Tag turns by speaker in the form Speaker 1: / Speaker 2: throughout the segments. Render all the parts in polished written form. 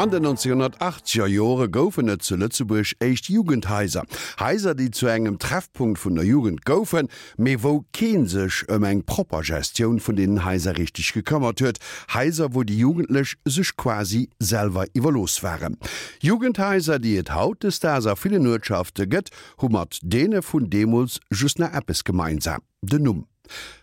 Speaker 1: An den 1980er Jore goufen et zu Lëtzebuerg éischt Jugendhaiser. Haiser, déi zu engem Treffpunkt vun der Jugend goufen, mee wou kee sech ëm eng propper Gestioun vun deenen Haiser richteg gekëmmert huet. Haiser, wou déi Jugendlech sech quasi selwer iwwerlooss waren. Jugendhaiser, déi et hautdesdaags a villen Uertschafte gëtt, hu mat deene vun deemools just nach eppes gemeinsam, den Numm.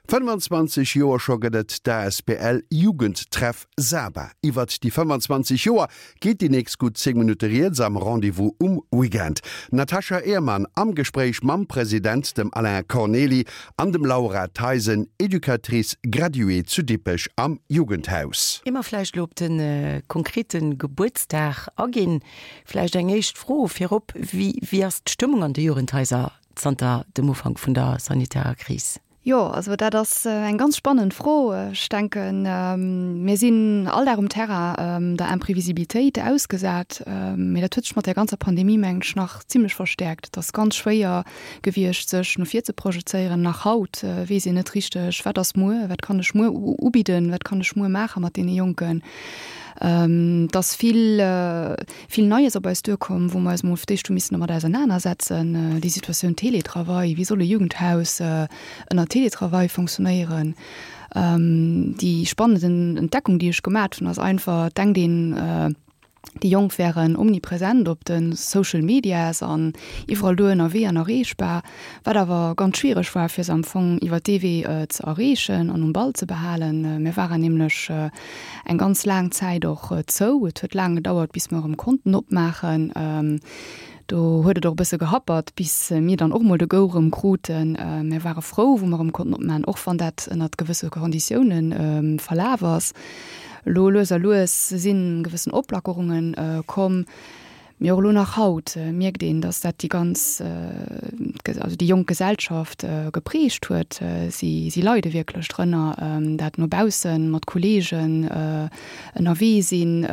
Speaker 1: 25 Joer scho gëtt et d'ASBL Jugendtreff Saba. Iwwert déi 25 Joer geet déi nächst gutt 10 Minutte rieds am Rendez-vous um Weekend. D'Natasha Ehrmann am Gespréich mam President, dem Alain Cornely, an dem Laura Theisen, Educatrice graduée zu Dippech am Jugendhaus.
Speaker 2: Ier mer vläicht elo op de konkrete Gebuertsdag aginn, vläicht eng éischt Fro virop, Wéi ass d'Stëmmung an de Jugendhaiser zanter dem Ufank vun der sanitärer Kris?
Speaker 3: Jo, also dat ass eng ganz spannend Fro. Ech denken, mir sinn all Dag um Terrain der Imprevisibilitéit ausgesat. Mee dat huet sech mat där ganzer Pandemie, mengen ech, nach zimlech verstäerkt. Et ass ganz schwéier gewiescht, sech no vir ze projezéieren. Nach haut weess een net richteg, wat ass muer, wat kann ech muer ubidden, wat kann ech muer maache mat deene Jonken. Et ass vill. Vill Neies op eis duerkomm, wou mer eis emol fir d'éischt hu missen domat ausernanersetzen, déi Situatioun Télétravail, wéi soll e Jugendhaus ënner Télétravail fonctionnéieren? Déi spannend Entdeckung, déi ech gemat hunn, ass einfach, et denkt een, déi Jonk wären omnipresent op de Social Medias an iwwerall do ënnerwee an erreechbar, wat awer ganz schwiereg war, fir se am Fong iwwer dee Wee ze erreechen an um Ball ze behalen. Mir waren nämlech eng ganz laang Zäit och zou. Et huet laang gedauert, bis mer erëm konnten opmaachen. Do huet et och e bësse gehappert, bis mir dann och mol de Go erëm kruten. Mir ware frou, wou mer erëm konnten opmaachen, och wann dat ënnert gewësse Konditioune verlaf ass. Elo lues a lues si gewëssen Oplackerunge komm. Mee och elo nach haut mierkt een, datt dat déi ganz, also déi jonk Gesellschaft geprägt huet. Si, si leide wierklech drënner, dat no baussen, mat Kolleegen ënnerwee sinn,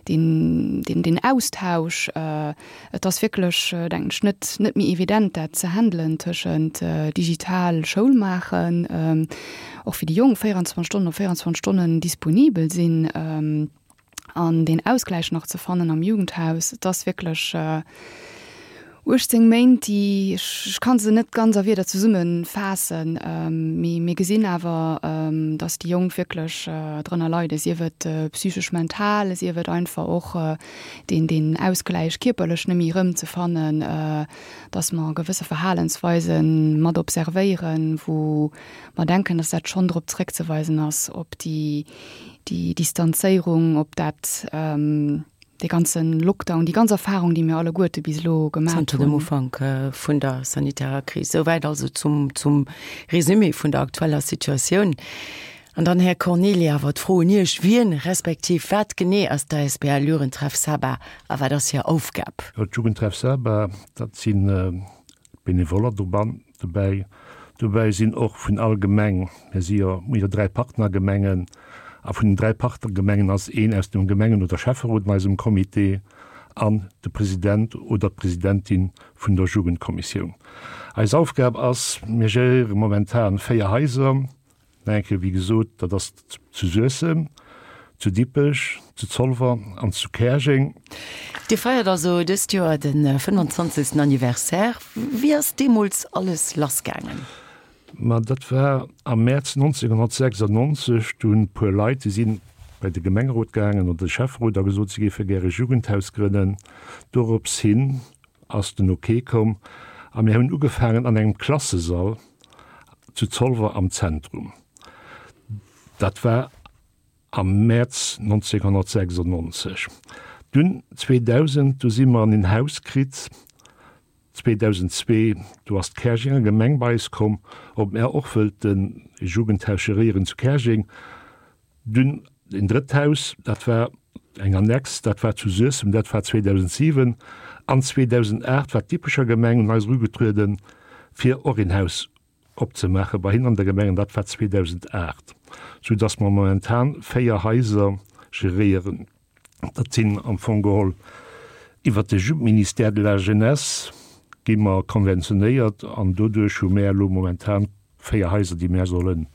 Speaker 3: deen, deen, deen Austausch. Et ass wierklech, denken ech, net, net méi evident, dat ze handelen tëschent digital Schoul maachen, och fir déi Jonk 24 Stonnen op 24 Stonnen disponibel sinn. An deen Ausgläich nach ze fannen am Jugendhaus, et ass wierklech 18 Méint, déi, ech ka se net ganz a Wierder zesummefaassen, mee mir gesinn awer, datt déi Jonk wierklech drënner leiden, sief et psychesch, mental, sief et einfach och deen, deen Ausgläich kierperlech net méi erëmzefannen, datt mer gewësse Verhalensweise mat observéieren, wou mer denken, datt dat schonn drop zeréckzeweisen ass op déi, déi Distanzéierung, op dat, dee ganze Lockdown, déi ganz Erfahrung, déi mir alleguerte bis elo gemaat hunn.
Speaker 2: Zanter dem Ufank vun der sanitärer Kris. Souwäit also zum, zum Resumé vun der aktueller Situatioun. An dann, Här Cornely, awer d'Fro un Iech, Wien respektiv wat genee ass d'ASBL Jugendtreff Saba a wat ass hir Aufgab?
Speaker 4: D'Jugendtreff Saba, dat si Benevoller doban, dobäi. Dobäi sinn och vun all Gemeng, mir si jo, mir hu jo 3 Partnergemengen, a vun den 3 Partnergemengen ass een aus dem Gemengen oder Schäfferot an eisem Comité an de President oder d'Presidentin vun der Jugendkommissioun. Eis Aufgab ass, mir geréiere momentan 4 Haiser, Nach eng Kéier, wéi gesot, dat ass zu Suessem, zu Dippech, zu Zolwer an zu Käerjeng.
Speaker 2: Dir feiert also dëst Joer de 25. Anniversaire. Wéi ass deemools alles lassgaangen?
Speaker 4: Ma dat war am Mäerz 1996. Do hunn e puer Leit, déi si bei de Gemengerot gaangen oder de Schäfferot a gesot, si géife gäre Jugendhaus grënnen. Dorops hin ass den Ok komm a mir hunn ugefaangen an engem Klassesall zu Zolwer am Zentrum. Dat war am Mäerz 1996. Dunn 2000, du si mer an een Haus kritt. 2002, du ass d'Käerjenger Gemeng bei eis komm, ob mär och wëllten e Jugendhaus geréieren zu Käerjeng. Dunn een drëtt Haus, dat war eng Annex, dat war zu Suessem, dat war 2007. An 2008 war d'Dippecher Gemeng un eis erugetrueden, fir och een Haus opzemaache bei hinnen an der Gemeng, an dat war 2008, soudass mer momentan 4 Haiser geréieren. Dat sinn am Fong geholl iwwert de Ministère de la Jeunesse gi mer konventionéiert an doduerch hu mär elo momentan 4 Haiser, déi mär solle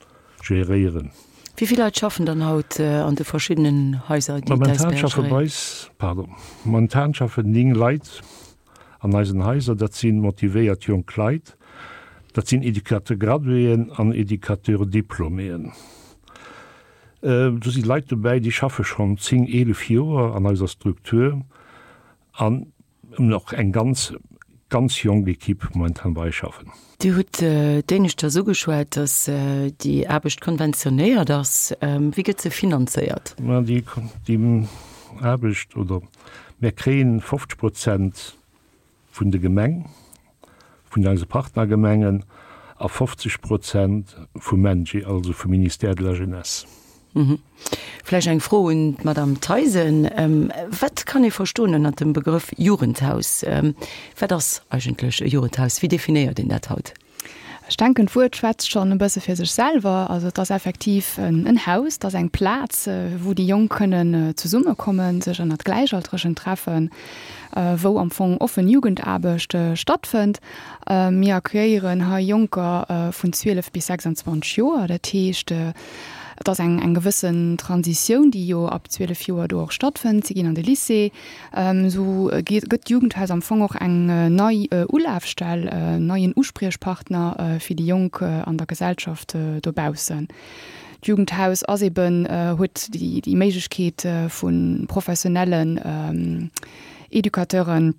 Speaker 4: geréieren.
Speaker 2: Wéi vill Leit schaffen dann haut an de verschiddenen Haiser, déi
Speaker 4: Momentan schaffe bei eis, pardon, momentan schaffen 9 Leit an eisen Haiser. Dat si motivéiert jonk Leit, dat sinn Educateur-graduéen an Educateur-diplôméen. Do si Leit dobäi, déi schaffe schonn 10, 11 Joer an eiser Struktur an hunn och eng ganz, ganz jonk Equipe momentan bei eis schaffen.
Speaker 2: Dir hutt d'éineschters ugeschwat, datt déi Aarbecht konventionéiert ass. Wéi gëtt se finanzéiert?
Speaker 4: Ma déi Aarbecht, oder mär kréien 50 Prozent vun de Gemeng, vun eise Partnergemengen a 50 Prozent vum MENJE, also vum Ministère de la Jeunesse.
Speaker 2: Vläicht eng Fro un d'Madame Theisen. Wat kann ee verstoen ënnert dem Begrëff Jugendhaus? Wat ass eigentlech e Jugendhaus? Wéi definéiert een dat haut?
Speaker 3: Ech denken, d'Wuert schwätzt schonn e bësse fir sech selwer. Also et ass effektiv en Haus, et ass eng Plaz, wou déi Jonk kënnen zesummekommen, sech ënnert Gläichaltregen treffen, wou am Fong offen Jugendaarbecht stattfënnt. Mir accueillieren hei Jonker vun 12 bis 26 Joer. Dat heescht, et ass eng eng gewëssen Transitioun, déi jo ab 12 Joer do och stattfënnt. Si ginn an de Lycée. Esou gëtt d'Jugendhaus am Fong och eng nei Ulafstell, en neien Uspriechpartner fir déi Jonk an der Gesellschaft dobaussen. D'Jugendhaus ass eben, huet déi Méiglechkeet vu professionellen Educateuren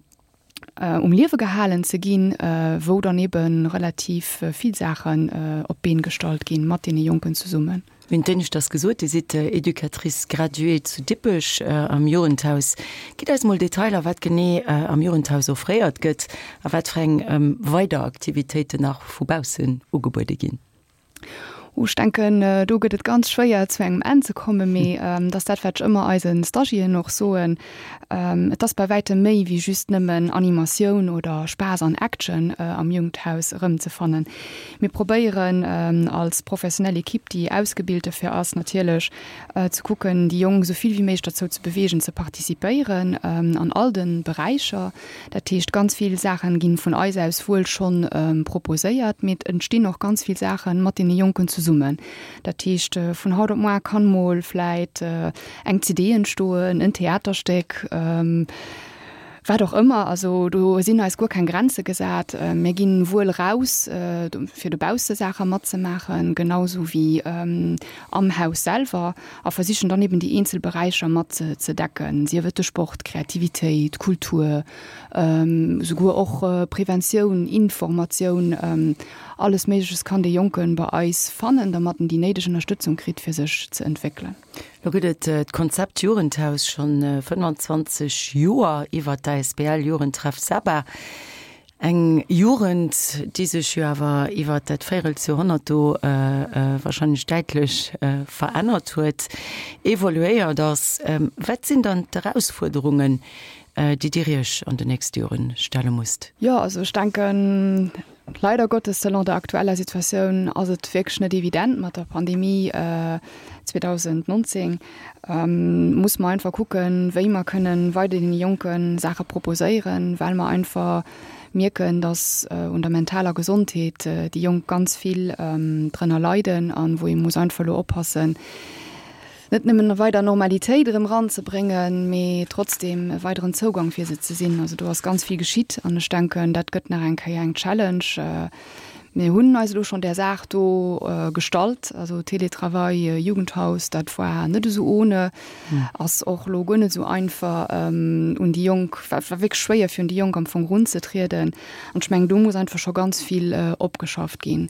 Speaker 3: um Liewe gehalen ze ginn, wou dann ebe relativ vill Saachen op d'Been gestallt ginn, mat deene Jonken zesummen.
Speaker 2: Mir hunn d'éineschters gesot, Dir sidd Educatrice graduée zu Dippech am Jugendhaus. Gitt eis mol Detailer, wat genee am Jugendhaus offréiert gëtt a wat fir eng weider Aktivitéiten nach vu baussen ugebuede ginn.
Speaker 3: Oh, ech denken, do gëtt et ganz schwéier zu engem Enn ze kommen, mee et ass dat, wat ech ëmmer eise Stagiairen och soen, Et ass bei wäitem méi wéi just nëmmen Animatioun oder Spaass an Action am Jugendhaus erëmzefannen. Mir probéieren als professionell Equipe, déi ausgebilt dofir ass, natierlech ze kucken, déi Jonk esou vill wéi méiglech derzou ze beweegen, ze participéieren an all de Beräicher. Dat heescht, ganz vill Saachen ginn vun eis aus wuel schonn proposéiert, mee et entstinn och ganz vill Saachen mat deene Jonken zesummen. Dat heescht, vun haut op moar kann mol vläit eng CD entstoen, en Theaterstéck, wat och ëmmer. Also do sinn eis guer keng Grenze gesat. Mir ginn wuel raus, fir dobausse Saache matzemaachen, genau sou wéi am Haus selwer. A versichen dann eben déi eenzel Beräicher mat ze decken, sief et de Sport, Kreativitéit, Kultur, souguer och Preventioun, Informatioun, alles Méigleches kann dee Jonke bei eis fannen, dermat en déi néideg Ënnerstëtzung kritt, fir sech ze entwéckelen.
Speaker 2: Lo gëtt et d'Konzept Jugendhaus schonn 25 Joer iwwert d'ASBL Jugendtreff Saba. Eng Jugend, déi sech jo awer iwwert dat Véirelsjoerhonnert do wahrscheinlech däitlech verännert huet, evoluéiert ass. Wat sinn dann d'Erausfuerderungen, déi Dir Iech an den nächste Jore stelle musst?
Speaker 3: Jo, also ech denken, leider Gottes, selon der aktueller Situatioun ass et wierklech net evident mat der Pandemie 2019. Muss mer einfach kucken, wéi mer kënnen weider deene Jonke Saache proposéieren, well mer einfach mierken, dass un der mentaler Gesondheet déi Jonk ganz vill drënner leiden an wou ee muss einfach elo oppassen, net nëmmen weider Normalitéit erëm eranzebréngen, mee trotzdem e weideren Zougang fir se ze sinn. Also do ass ganz vill geschitt an ech denken, dat gëtt nach eng Kéier eng Challenge. Mir hunn eis elo schonn där Saach do gestallt, also Télétravail, Jugendhaus, dat war net esou ohne, ass och elo guer net esou einfach un déi Jonk, war wierklech schwéier fir un déi Jonk am Fong erunzetrieden. An ech mengen, do muss einfach scho ganz vill opgeschafft ginn.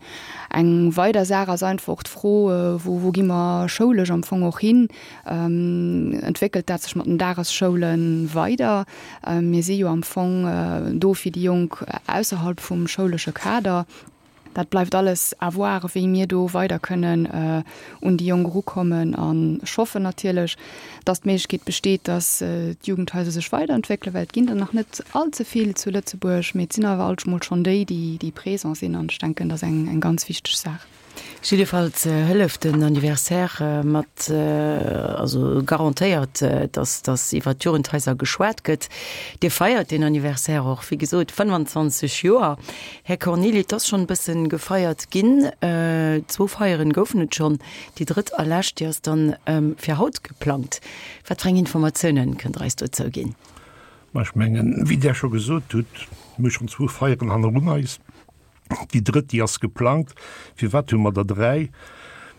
Speaker 3: Eng weider Saach ass einfach och d'Fro, wou wou gi mer schoulesch am Fong och hin? Entwéckelt dat sech mat den Dagesschoule weider? Mir si jo am Fong do fir déi Jonk ausserhalb vum schoulesche Kader. Dat bleift alles à voir, wéi mir do weider kënnen un déi Jonk erukommen. An ech hoffen natierlech, dass d'Méiglechkeet besteet, dass d'Jugendhaiser sech weiderentwéckelen, well et ginn der nach net all ze vill zu Lëtzebuerg, mee et sinn awer alt mol schonn déi, déi présent sinn. An ech denken, dat ass eng ganz wichteg Saach.
Speaker 2: Jiddefalls hëlleft den Anniversaire mat, also garantéiert, dass dass iwwert d'Jugendhaiser geschwat gëtt. Dir feiert deen Anniversaire och, wéi gesot, 25 Joer. Här Cornilli, et ass schonn e bësse gefeiert ginn. Zwou Feieren goufen et schonn. Déi drëtt a lescht, déi ass dann fir haut geplangt. Wat fir eng Informatiounen kënnt Der eis dozou ginn?
Speaker 4: Ma ech mengen, wéi Där scho gesot hutt, mir hu schonn zwou Feieren hannerun eis. Déi drëtt, déi ass geplangt. Firwat hu mer der dräi?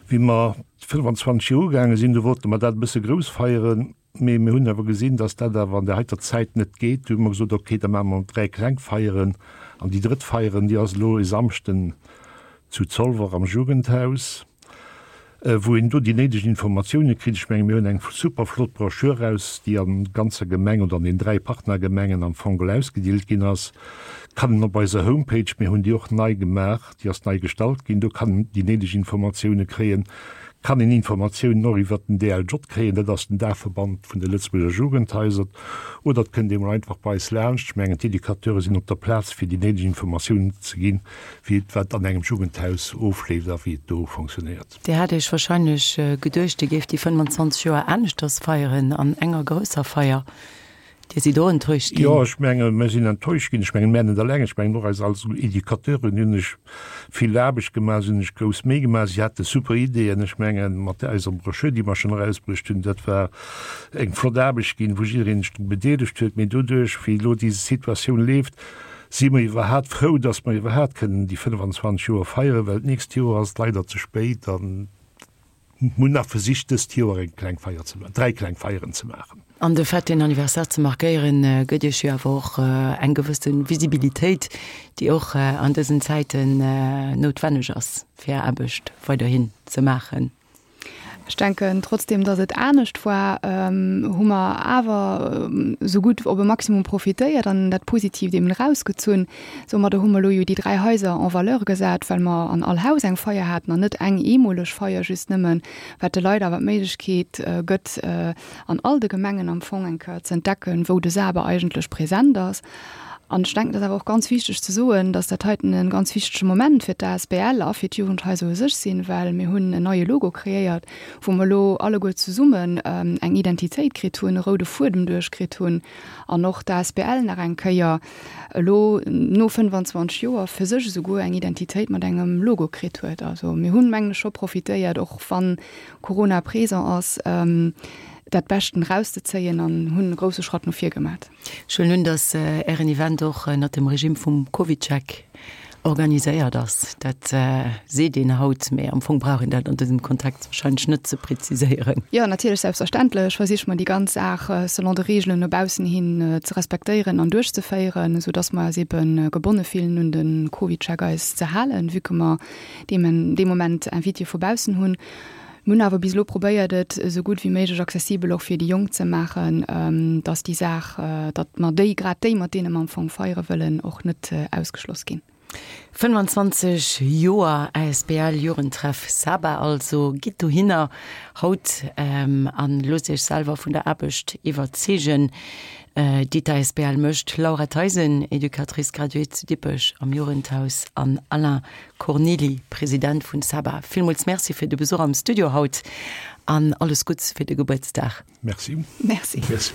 Speaker 4: Wéi mer 25 Joer ugaange sinn, du wollte mer dat e bësse grouss feieren, mee mir hunn awer gesinn, datt dat awer an där heiter Zäit net geet. Du hu mer gesot, okay, da maache mer dräi kleng Feieren. An déi drëtt Feieren, déi ass elo e Samschden zu Zolwer am Jugendhaus. wou een do déi néideg Informatioune kritt. Ech menge mir hunn eng super flott Broschür eraus, déi an ganzer Gemeng oder an den 3 Partnergemengen am Fong geholl ausgedeelt ginn ass. Kann een op eiser Homepage, mir hunn déi och nei gemaach, déi ass nei gestallt ginn, do kann een déi néideg Informatioune kréien. Kann een Informatiounen och iwwert den DLJ kréien, dat ass den Daachverband vun de Lëtzebuerger Jugendhaiser. Oder et kënnt ee mol einfach bei eis laanscht. Ech mengen d'Educateure sinn op der Plaz fir déi néideg Informatiounen ze ginn. wéi et wat an engem Jugendhaus ofleeft a wéi et do fonctionnéiert.
Speaker 2: Dir hat Iech wahrscheinlech geduecht, Dir géift déi 25 Joer aneschters feieren, an enger grousser Feier. Dir sidd och enttäuscht ginn?
Speaker 4: Jo, ech menge mir sinn enttäuscht ginn. Ech mengen, mär net eleng, ech mengen och eis als Educateuren hunn sech vill Aarbecht gemaach, si hunn sech grouss Méi gemaach, si hate super Ideeën. Ech mengen, mat eiser Broschür, déi mer schonn erausbruecht hunn, dat war eng flott Aarbecht ginn, wou jiddereen sech dru bedeelegt huet. Mee doduerch, wéi elo déi Situatioun leeft, Si mer iwwerhaat frou, dass mer iwwerhaat kënnen déi 25 Joer feieren, well d'nächst Joer ass et leider ze spéit an mir hunn nach versicht dëst Joer eng kleng Feier ze maachen, dräi kleng Feieren ze maachen.
Speaker 2: An de Fait, deen Anniversaire ze markéieren, gëtt Iech jo awer och eng gewësse Visibilitéit, déi och an dësen Zäiten noutwenneg ass, fir Är Aarbecht weiderhin ze maachen.
Speaker 3: Ech denken, trotzdem datt et anescht war, hu mer awer esou gutt op e Maximum profitéiert an dat Positiivt eben erausgezunn. Soumadder hu mer elo jo déi 3 Haiser en valeur gesat, well mer an all Haus eng Feier haten an net eng eemoleg Feier just nëmmen, wat de Leit awer d'Méiglechkeet gëtt, an all de Gemengen am Fong eng Kéier ze entdecken, wou de SABE eigentlech present ass. An ech denken, et ass awer och ganz wichteg ze soen, dass dat heiten e ganz wichtege Moment fir d'ASBL a fir d'Jugendhaiser u sech sinn, well mir hunn en neie Logo kreéiert, wou mer elo alleguer zesummen eng Identitéit kritt hunn, e roude Fuedem duerchkritt hunn an och d'ASBL nach eng Kéier elo no 25 Joer fir sech esouguer eng Identitéit mat engem Logo kritt huet. Also mir hunn, mengen ech, scho profitéiert, och wann Corona présent ass, dat Beschten erauszezéien an hunn e grousse Schratt no vir gemat.
Speaker 2: Ech huelen un, dass Ären Event och ënnert dem Regime vum CovidCheck organiséiert ass. Dat seet een haut, mee am Fong brauch een dat an dësem Kontext wahrscheinlech net ze preziséieren.
Speaker 3: Jo, natierlech, selbstverständlech versiche mer déi ganz Saach selon de Reegelen no baussen hin ze respektéieren an duerchzeféieren, esou dass mer eis ebe gebonne fillen un de CovidCheck eis ze halen, vue que mer dee Moment Invitéë vu baussen hunn. Mir hunn awer bis elo probéiert, et esou gutt wéi méiglech accessibel och fir déi Jonk ze maachen, dass déi Saach, datt mer déi, grad déi, mat deene mer am Fong feiere wëllen, och net ausgeschloss ginn.
Speaker 2: 25 Joer asbl Jugendtreff Saba also. Gitt dohinner haut an loosst iech selwer vun der Aarbecht iwwerzeegen, déi d'ASBL mécht. Laura Theisen, Educatrice graduée zu Dippech am Jugendhaus an Alain Cornely, President vun Saba, villmools Merci fir de Besuch am Studio haut an alles Gutts fir de Gebuertsdag.
Speaker 4: Merci.
Speaker 3: Merci.
Speaker 4: Merci.